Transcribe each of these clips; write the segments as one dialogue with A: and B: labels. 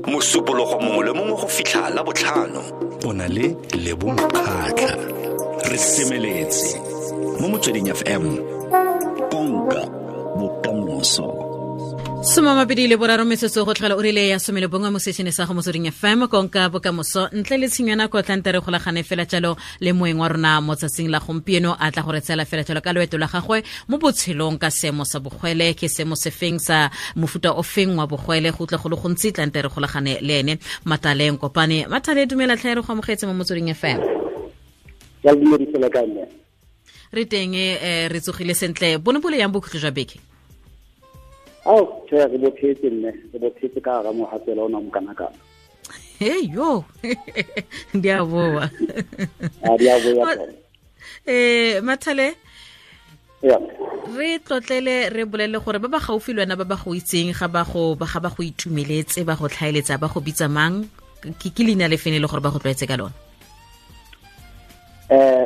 A: Mosupologo mongwe le mongwe go fitlha la botlhano. O na le Lebo Mokgatlha. Re semeletse mo Motsweding FM. Konka bokamoso.
B: 23 metsotso go tlhola o rile ya 11 mo sešene sa go Motsweding FM, konka bokamoso. Ntle le tshenyo ya nako, tlante re golagane fela jalo le moeng wa rona mo tsatsing la gompieno, a tla go re tsela fela jalo ka loeto la gagwe mo botshelong ka seemo sa bogwele. Ke seemo sefeng sa mofuta o feng wa bogwele? Go utlwa go le gontsi, tlante re golagane le ene, Mataleng Kopane. Matale, dumela tlhae, re go amogetse mo Motsweding FM. Re teng, re tsogile sentle. Bone bole yang bokhutlo jwa beke?
C: Ao, tjhe, re bophetse mme, re bophetse ka hara mohatsela ona mokanakana.
B: Hey yo, di a boa.
C: A di a boa.
B: Mathale, re tlotlele, re bolele gore ba ba gaufi le wena, ba ba go itseng, ga ba go itumeletse, ba go tlhaeletsa, ba go bitsa mang? Ke leina le fene le gore ba go tlwaetse ka lona?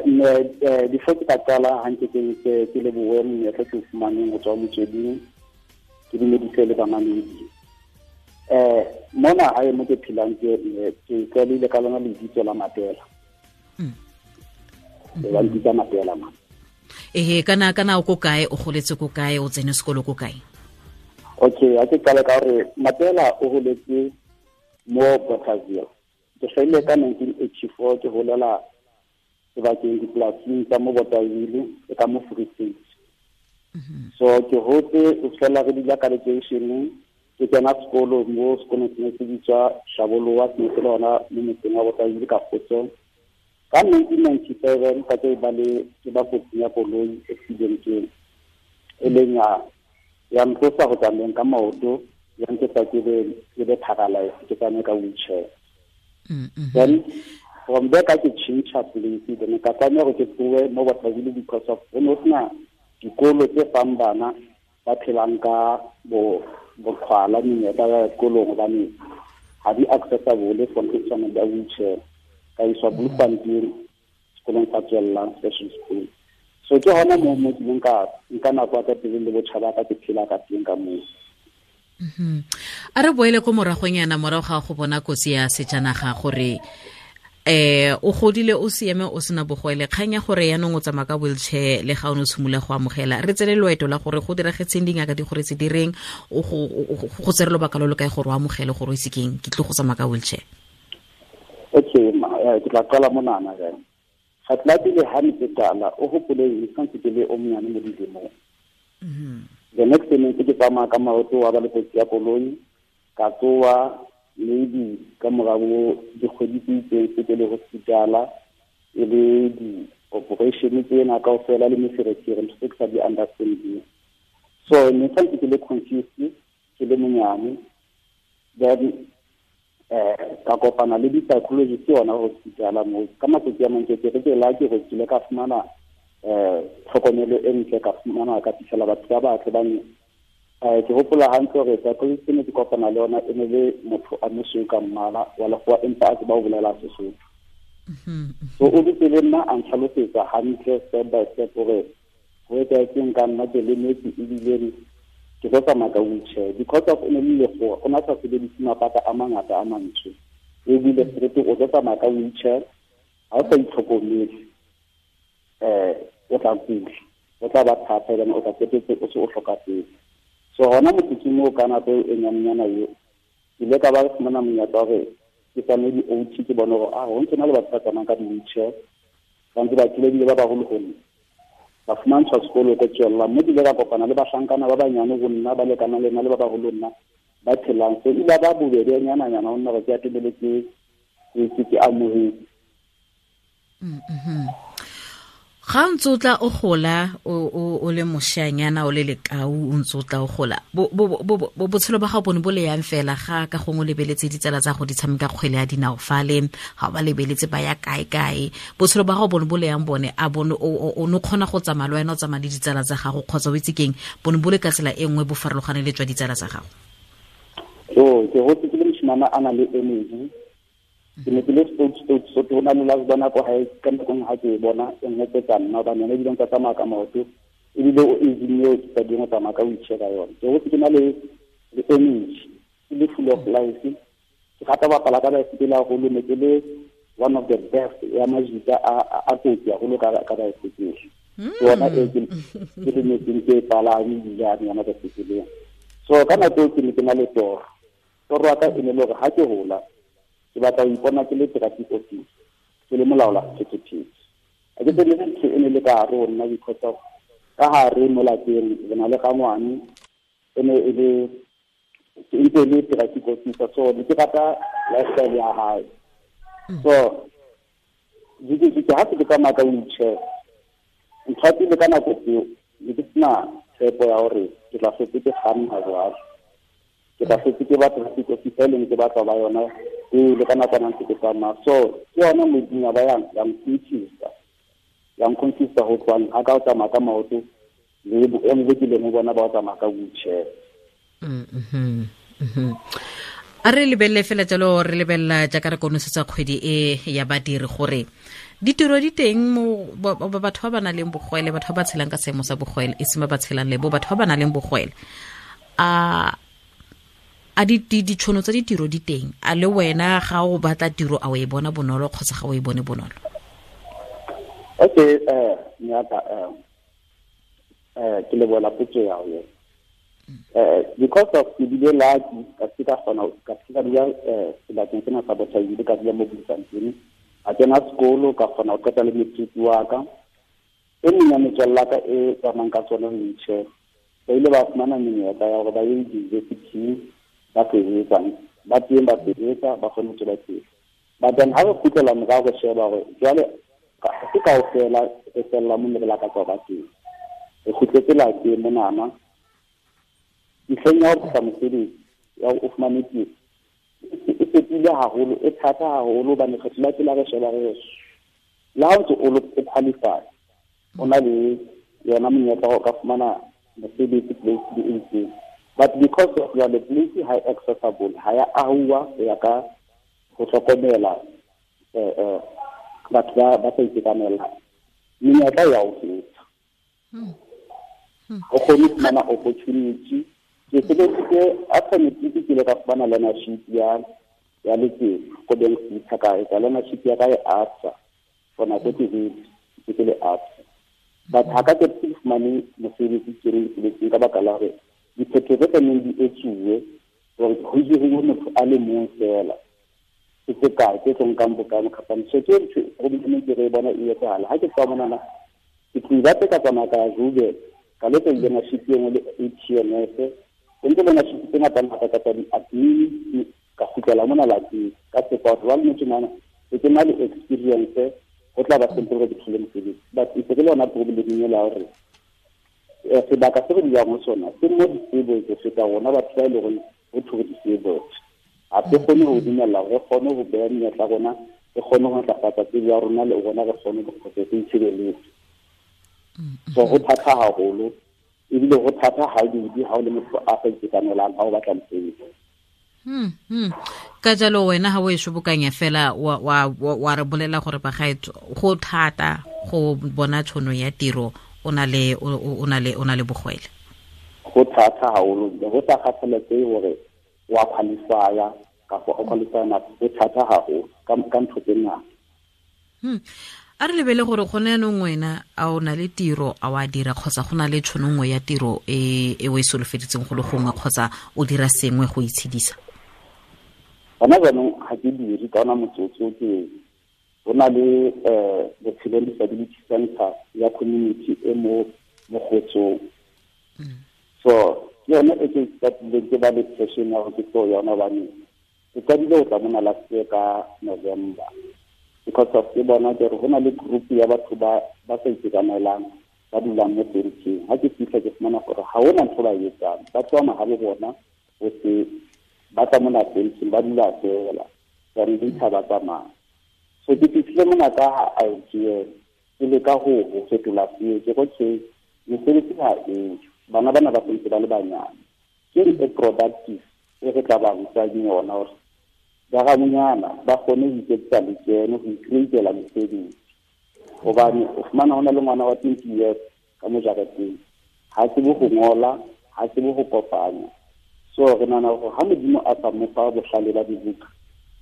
C: Mme before ke ka qala hantle, ke lebohe monyetla ke o fumaneng go tswa Motsweding, ke dumedise le bamamedi. Mona hae mo ke phelang, ke tlwaelehile ka lona lebitso la Matela. Ba mpitsa Matela ma.
B: Ehe, kana o ko kae, o goletse ko kae, o tsene sekolo ko kae?
C: Okay, a ke qale ka hore Matela o holetse mo Bothaville. Ke hlahile ka 1984, ke holela sebakeng dipolasing tsa mo Bothaville e ka mo Free State. So ke hotse o fela re dula ka lekeisheneng, ke kena sekolo mo sekolong se ne se bitswa Shaboloa, se ne se le hona mo motseng wa Bothaville ka Kgotsong. Ka 1997 ka ke ba le ke ba kotsing ya koloi, accident e leng ya ntlosa go tsamayeng ka maoto, ya nketsa ke be paralyzed, ke tsamaye ka wheelchair. Then from there ka ke change place, then ka tlameha hore ke tlohe mo Bothaville because of ho ne ho sena dikolo tse fang bana ba phelang ka boqhwala menyetla ya sekolong, hobane ha di accessible for ntho tshwana le wheelchair. Ka iswa Bloemfontein sekolong sa tswellang, special school. So ke hona moo mo kileng ka nka nako ya ka pele le botjha ba ka, ke phela ka teng ka moo.
B: A re boele ko moragonyana, morago ga go bona kotsi ya sejanaga, gore o godile o siame, o sena bogwele, kgang ya gore yaanong o tsamaya ka wheelchair le ga o ne o tshimolola go amogela, re tsele loeto la gore go diragetseng, dingaka di gore tse di reng, go tsere lobaka lo lo kae gore o amogele gore o itse keng, ke tlo go tsamaya ka wheelchair?
C: Okay, ke tla qala monana jang. Ga tla pele ha ne ke qala, o hopole ke santse ke le o monyane mo dilemong. The next thing ke tsamaya ka maoto, wa ba le kotsi ya koloi, ka tsoa maybe ka morao dikgwedi tse itseng se ke le hospitala, e le di-operation tsena kaofela le meferefere, ntho tse ke sa di understanding. So ne santse ke le confused, ke le monyane. Then ka kopana le di-psychologist yona hospitala moo. Ka matsatsi a mang ke re ke la ke go kile ka fumana tlhokomelo e ntle, ka fumana ka fitlhela batho ba batle ba ke hopola hantle hore psychologist ne ke kopana le yona e ne le motho a mosweu ka mmala wa lekgowa, empa a tseba ho bolela Sesotho. So o dutse le nna a ntlhalosetsa hantle step by step hore ho etsahetseng ka nna, ke lemetse ebile ke tlo tsamaya ka wheelchair. Because of o ne le lekgowa, o na sa sebedise mabaka a mangata a mantsho, ebile straight o tlo tsamaya ka wheelchair, ha o sa itlhokomele o tla kula, o tla ba thata, ebane o tla qetetse o se o hlokafetse. So hona motsotsong oo ka nako eo e nyanenyana eo, ke ile ka ba fumana monyetla wa hore ke tsamaye di-O T, ke bone hore ho ntse na le batho ba tsamayang ka di-wheelchair, ba ntse ba kile ebile ba baholo ho nna. Ba fumantshwa sekolo ko tswellang, mme ke ile ka kopana le bahlankana ba banyane ho nna, ba lekanang le nna le ba baholo ho nna, ba phelang. So ile ba bobebe nyana-nyana ho nna hore ke atomele ke amohetse.
B: Ga o ntse o tla o gola, o le moshanyana, o le lekau, o ntse o tla o gola, botshelo ba gago bone bo le yang fela ga ka gongwe o lebeletse ditsala tsa go di tshameka kgwele ya dinao fale, ga o ba lebeletse ba ya kae kae, botshelo ba gago bone bo le yang bone, a bone o ne o kgona go tsamaya le wena o tsamaya le ditsala tsa gago, kgotsa o itse keng, bone bo le ka tsela e nngwe bo farologane le tswa ditsala tsa gago?
C: So ke hotse ke le moshimana a nang le energy. Ke ne ke le stout, stout, so ke bona le last bona ko hae, ka nako nngwe ha ke e bona, e nkgopotsa nna, hobane yona ebile nka tsamaya ka maoto, ebile o aging eo ke sa ding go tsamaya ka wheelchair ka yone. Ke hotse ke na le energy, ke le full of life, Ke rata ho bapala ka baesekele haholo, ne ke le one of the best ya majita a kotsi haholo ka baesekele. Ke yona e ke lemetseng ke e palame ebilane yona baesekeleng. So ka nako eo ke ne ke na le toro. Toro ya ka e ne le hore ha ke hola ke batla ho ipona ke le traffic officer, ke le molaola sephethephethe. Ha ke tsebe ntho e ne le ka hare ho nna because of ka hare mo lapeng re na le rangwane e ne e le e ntse e le traffic officer, so ne ke rata lifestyle ya hae. So ha se ke tsamaya ka wheelchair, ntho ya pele ka nako tseo ne ke sena tshepo ya hore ke tla hlotse ke kganna jwalo, ke tla hlotse ke ba traffic officer e leng ke batla ba yona pele ka nako ntse ke tsamaya. So ke yona modimo ba yang ya nconfuse ho tswang ha ka o tsamaya ka maoto le boemo bo kileng ho bona ba o tsamaya ka wheelchair.
B: A re lebelele fela jalo, re lebella jaaka re konosetsa kgwedi e ya badiri gore ditiro di teng mo batho ba ba nang le bogwele, batho ba ba tshelang ka seemo sa bogwele, e seng ba ba tshelang le bo, batho ba ba nang le bogwele. A ditšhono tsa ditiro di teng? A le wena ga o batla tiro a o e bona bonolo kgotsa ga o e bone bonolo?
C: Okay, nyaka ke lebohela potso ya hao. Because of ke bile lucky ka se ka kgona ka se ka dula sebakeng sena sa Bothaville, ka dula mo Bloemfontein, a kena sekolo ka kgona ho qeta le matric wa ka. E meng ya metswalle ya ka e tsamayang ka tsona wheelchair, ba ile ba fumana menyetla ya hore ba ye di-university ba sebetsang, ba teng ba sebetsa, ba kgone ho tswela pele. But then ha re kgutlela morao re sheba hore jwale ha se kaofela re fella mo ne re lakatsa ho ba teng. Re kgutletse lapeng monana, ntlheng ya ho batla mosebetsi ya hore o fumane tiro e fetohile haholo, e thata haholo hobane kgetho la pele ha re sheba re le ha o ntse o qualify, o na le yona monyetla wa ho ka fumana mosebetsi place e itseng, but because of jwale place ha e accessible, ha ya ahuwa ho ya ka ho hlokomela batho ba sa itekanelang, menyetla ya ho feta. O kgone ho fumana opportunity. Ke sebeditse after matric ke ile ka fumana learnership ya letsema ko Bank City, ka etsa learnership ya ka e ABSA for nako e telele ke le ABSA. But ha ka ke fumane mosebetsi ke le mosebetsing ka baka la hore diphetho tse tlamehang di etsuwe hore ho hiriwe motho a le mong feela ke tse kae tse tlo nkang bokana khampani. So ke ntho e ke re bona e etsahala. Ha ke tswa monana ke tlo batla ka tsamaya ka ya Joburg, ka lo etsa learnership e nngwe le ATMS, e ntse learnership tse ngata ngata ka tsa di-admin, ka kgutlela mona lapeng ka tshepa hore jwale motho mona ke na le experience, ho tla ba simple hore ke thole mosebetsi. But e se ke le yona problem ela ya hore sebaka se re dulang ho sona se mo disabled ho feta rona batho ba e leng hore ho thwe re disabled. Ha se kgone ho dumella hore re kgone ho beha menyetla ya rona, re kgone ho ntlafatsa tsebo ya rona le rona re kgone ho re itshebeletse. So ho thata haholo, ebile ho thata ha di ha o le motho a sa itekanelang ha o batla mosebetsi.
B: Ka jalo wena ha o e shobokanya fela wa re bolela gore bagaetso go thata go bona tšhono ya tiro o na le bogwele.
C: Go thata haholo, go sa kgathaletsehe hore wa qualify-a kapa o qualify na, go thata haholo ka ntho tse ngata.
B: A re lebele gore gone yanong wena a o na le tiro a wa dira kgotsa go na le tšhono nngwe ya tiro e o e solofeditseng go le gongwe kgotsa o dira sengwe go itshedisa?
C: Gona jaanong ga ke dire ka ona motsotso, ke go na le Botshelong Disability Center ya community e mo Mogotsong. So ke yone e ke qadileng ke ba le passion ya hore ke tlo yona hobane ke qadile ho tla mona last year ka November. Because of ke bona ke re ho na le group ya batho ba sa itekanelang ba dulang mo tenteng. Ha ke fihla ke fumana hore ha hona ntho ba e etsang, ba tswa mahabo bona ho se ba tla mona tenteng ba dula fela, then later ba tsamaya. So ke fihlile mona ka idea ke leka ho fetola seo, ke re okay, mesebetsi ha eo, bana bana ba sentse ba le banyane, ke e productive e re tla ba rutang yona hore ba ramonyana ba kgone ho iketsetsa lekeno, ho icreatela mesebetsi. Hobane o fumana ho na le ngwana wa 20 years ka mo jareteng, ha tsebe ho ngola, ha tsebe ho kopanya. So re nahana hore ha Modimo a sa mo fa bohlale ba dibuka,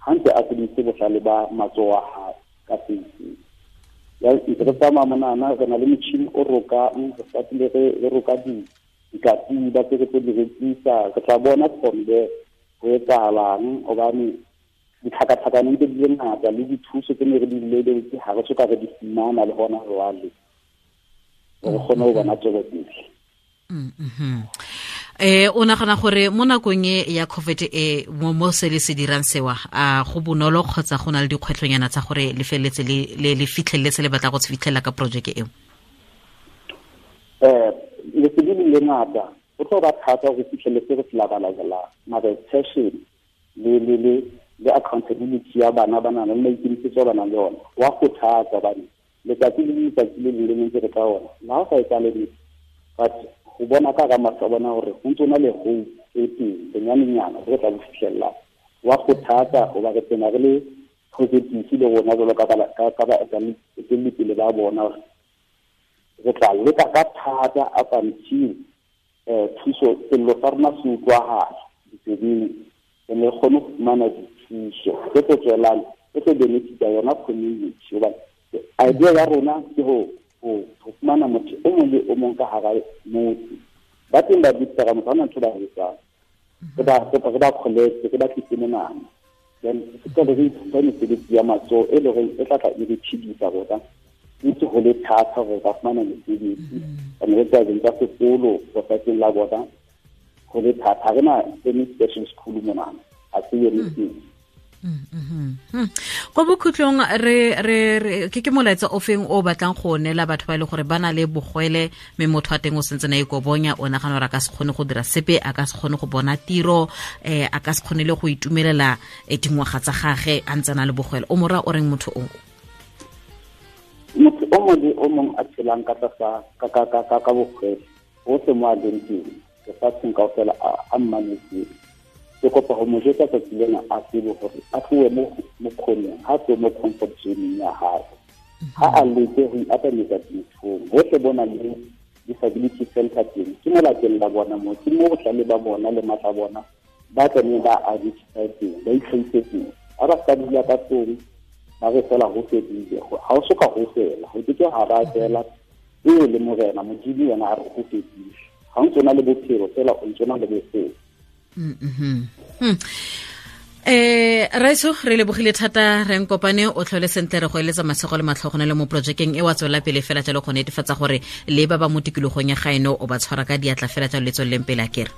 C: Ha ntse a sebedisitse bohlale ba matsoho a hae ka se itseng. Ya ntse re tsamaya monana, re na le motjhini o rokang, re satile re roka dikatiba tse re tlo di rekisa. Re tla bona from there ho etsahalang, hobane ditlhakatlhakano ntse di le ngata le dithuso tse ne re di lebeletse ha re soka re di fumana le hona jwale, re kgone ho bona tswelopele.
B: O nagana gore mo nakong e ya COVID e mo se le se dirang sewa, a go bonolo kgotsa go na le dikgwetlhonyana tsa gore le feleletse le fitlheletse le batla go se fitlhelela ka projeke eo?
C: Lesedi le le ngata, go tlo ba thata go fitlheletse re se labalabelang, mara passion le accountability ya bana ba nang le maikemisetso a ba nang le ona wa kgothatsa, hobane letsatsi le letsatsi le leng le ntse re ka ona le ha o sa etsahale niks, but ho bona ka hara mahlo a bona hore ho ntso na le hope e teng bonyanenyana re tla bo fihlella, wa kgothatsa hoba re tsena re le positive le rona jwalo ka baetelli ba bona hore re tla leka ka thata up until thuso sello sa rona se utlwahala ditsebeng, re ne re kgone ho fumana dithuso tse tlo tswelang, tse tlo benefita yona community. Hobane idea ya rona ke ho fumana motho o mong le o mong ka hara motse. Ba teng ba bitsa ka motho, ha hona ntho ba e etsang. Re ba collect, re ba tlise monana. Then re tla re ithuta mesebetsi ya matsoho e leng hore e tla tla e re phedisa rona. Ntse ho le thata hore re ka fumana mesebetsi. Hobane re tswa tsa sekolo lefatsheng la bona, ho le thata. Ha re na any special school monana, ha se yone teng.
B: Ko bokhutlong re ke molaetsa o feng o batlang go neela batho ba e leng gore ba na le bogwele, mme motho wa teng o sentse na ikobonya, o nagana gore a ka se kgone go dira sepe, a ka se kgone go bona tiro, a ka se kgone le go itumelela dingwaga tsa gage a ntse a na le bogwele. O mo raya o reng motho o?
C: Motho o mongwe le o mongwe a tshelang ka tlasa ka bogwele, hohle mo a leng teng lefatsheng kaofela a mmanetseng, ke kopa ho mo jwetsa tsatsi lena a tsebe hore a tlohe mo khoneng, ha tlohe mo comfort zone ya hae. Ha a leke ho iatametsa dinthong, hohle bo na le disability center teng, ke mo lapeng la bona moo, ke mo bohlale ba bona le matla a bona ba tlamehileng ba identify teng, ba itlhahise teng. Ha ba ska dula ka tlung, ba re fela ho fedile, ha o soka ho fela, ho ke ke ha ba fela. E le morena Modimo yena a re ho fedile. Ha o ntso na le bophelo fela, o ntso na le bophelo.
B: Raiso, re lebogile thata, re nkopane, o tlhole sentle, re go eletsa masego le matlhogonelo le mo projekeng e wa tswela pele fela jalo go netefatsa gore le ba ba mo tikologong ya gaeno o ba tshwara ka diatla fela jalo le tsweleleng pele a kere.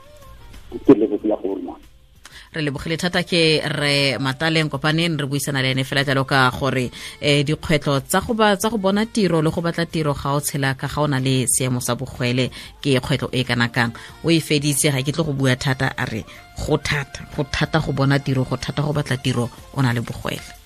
C: Ke lebogile go rona.
B: Re lebogile thata ke re Mataleng Kopaneng, re buisana le ene fela jalo ka gore dikgwetlho tsa go ba, tsa go bona tiro le go batla tiro ga o tshela ka ga o na le seemo sa bogwele ke kgwetlho e kana kang. O e feditse, ga ke tle go bua thata, a re go thata, go thata go bona tiro, go thata go batla tiro o na le bogwele.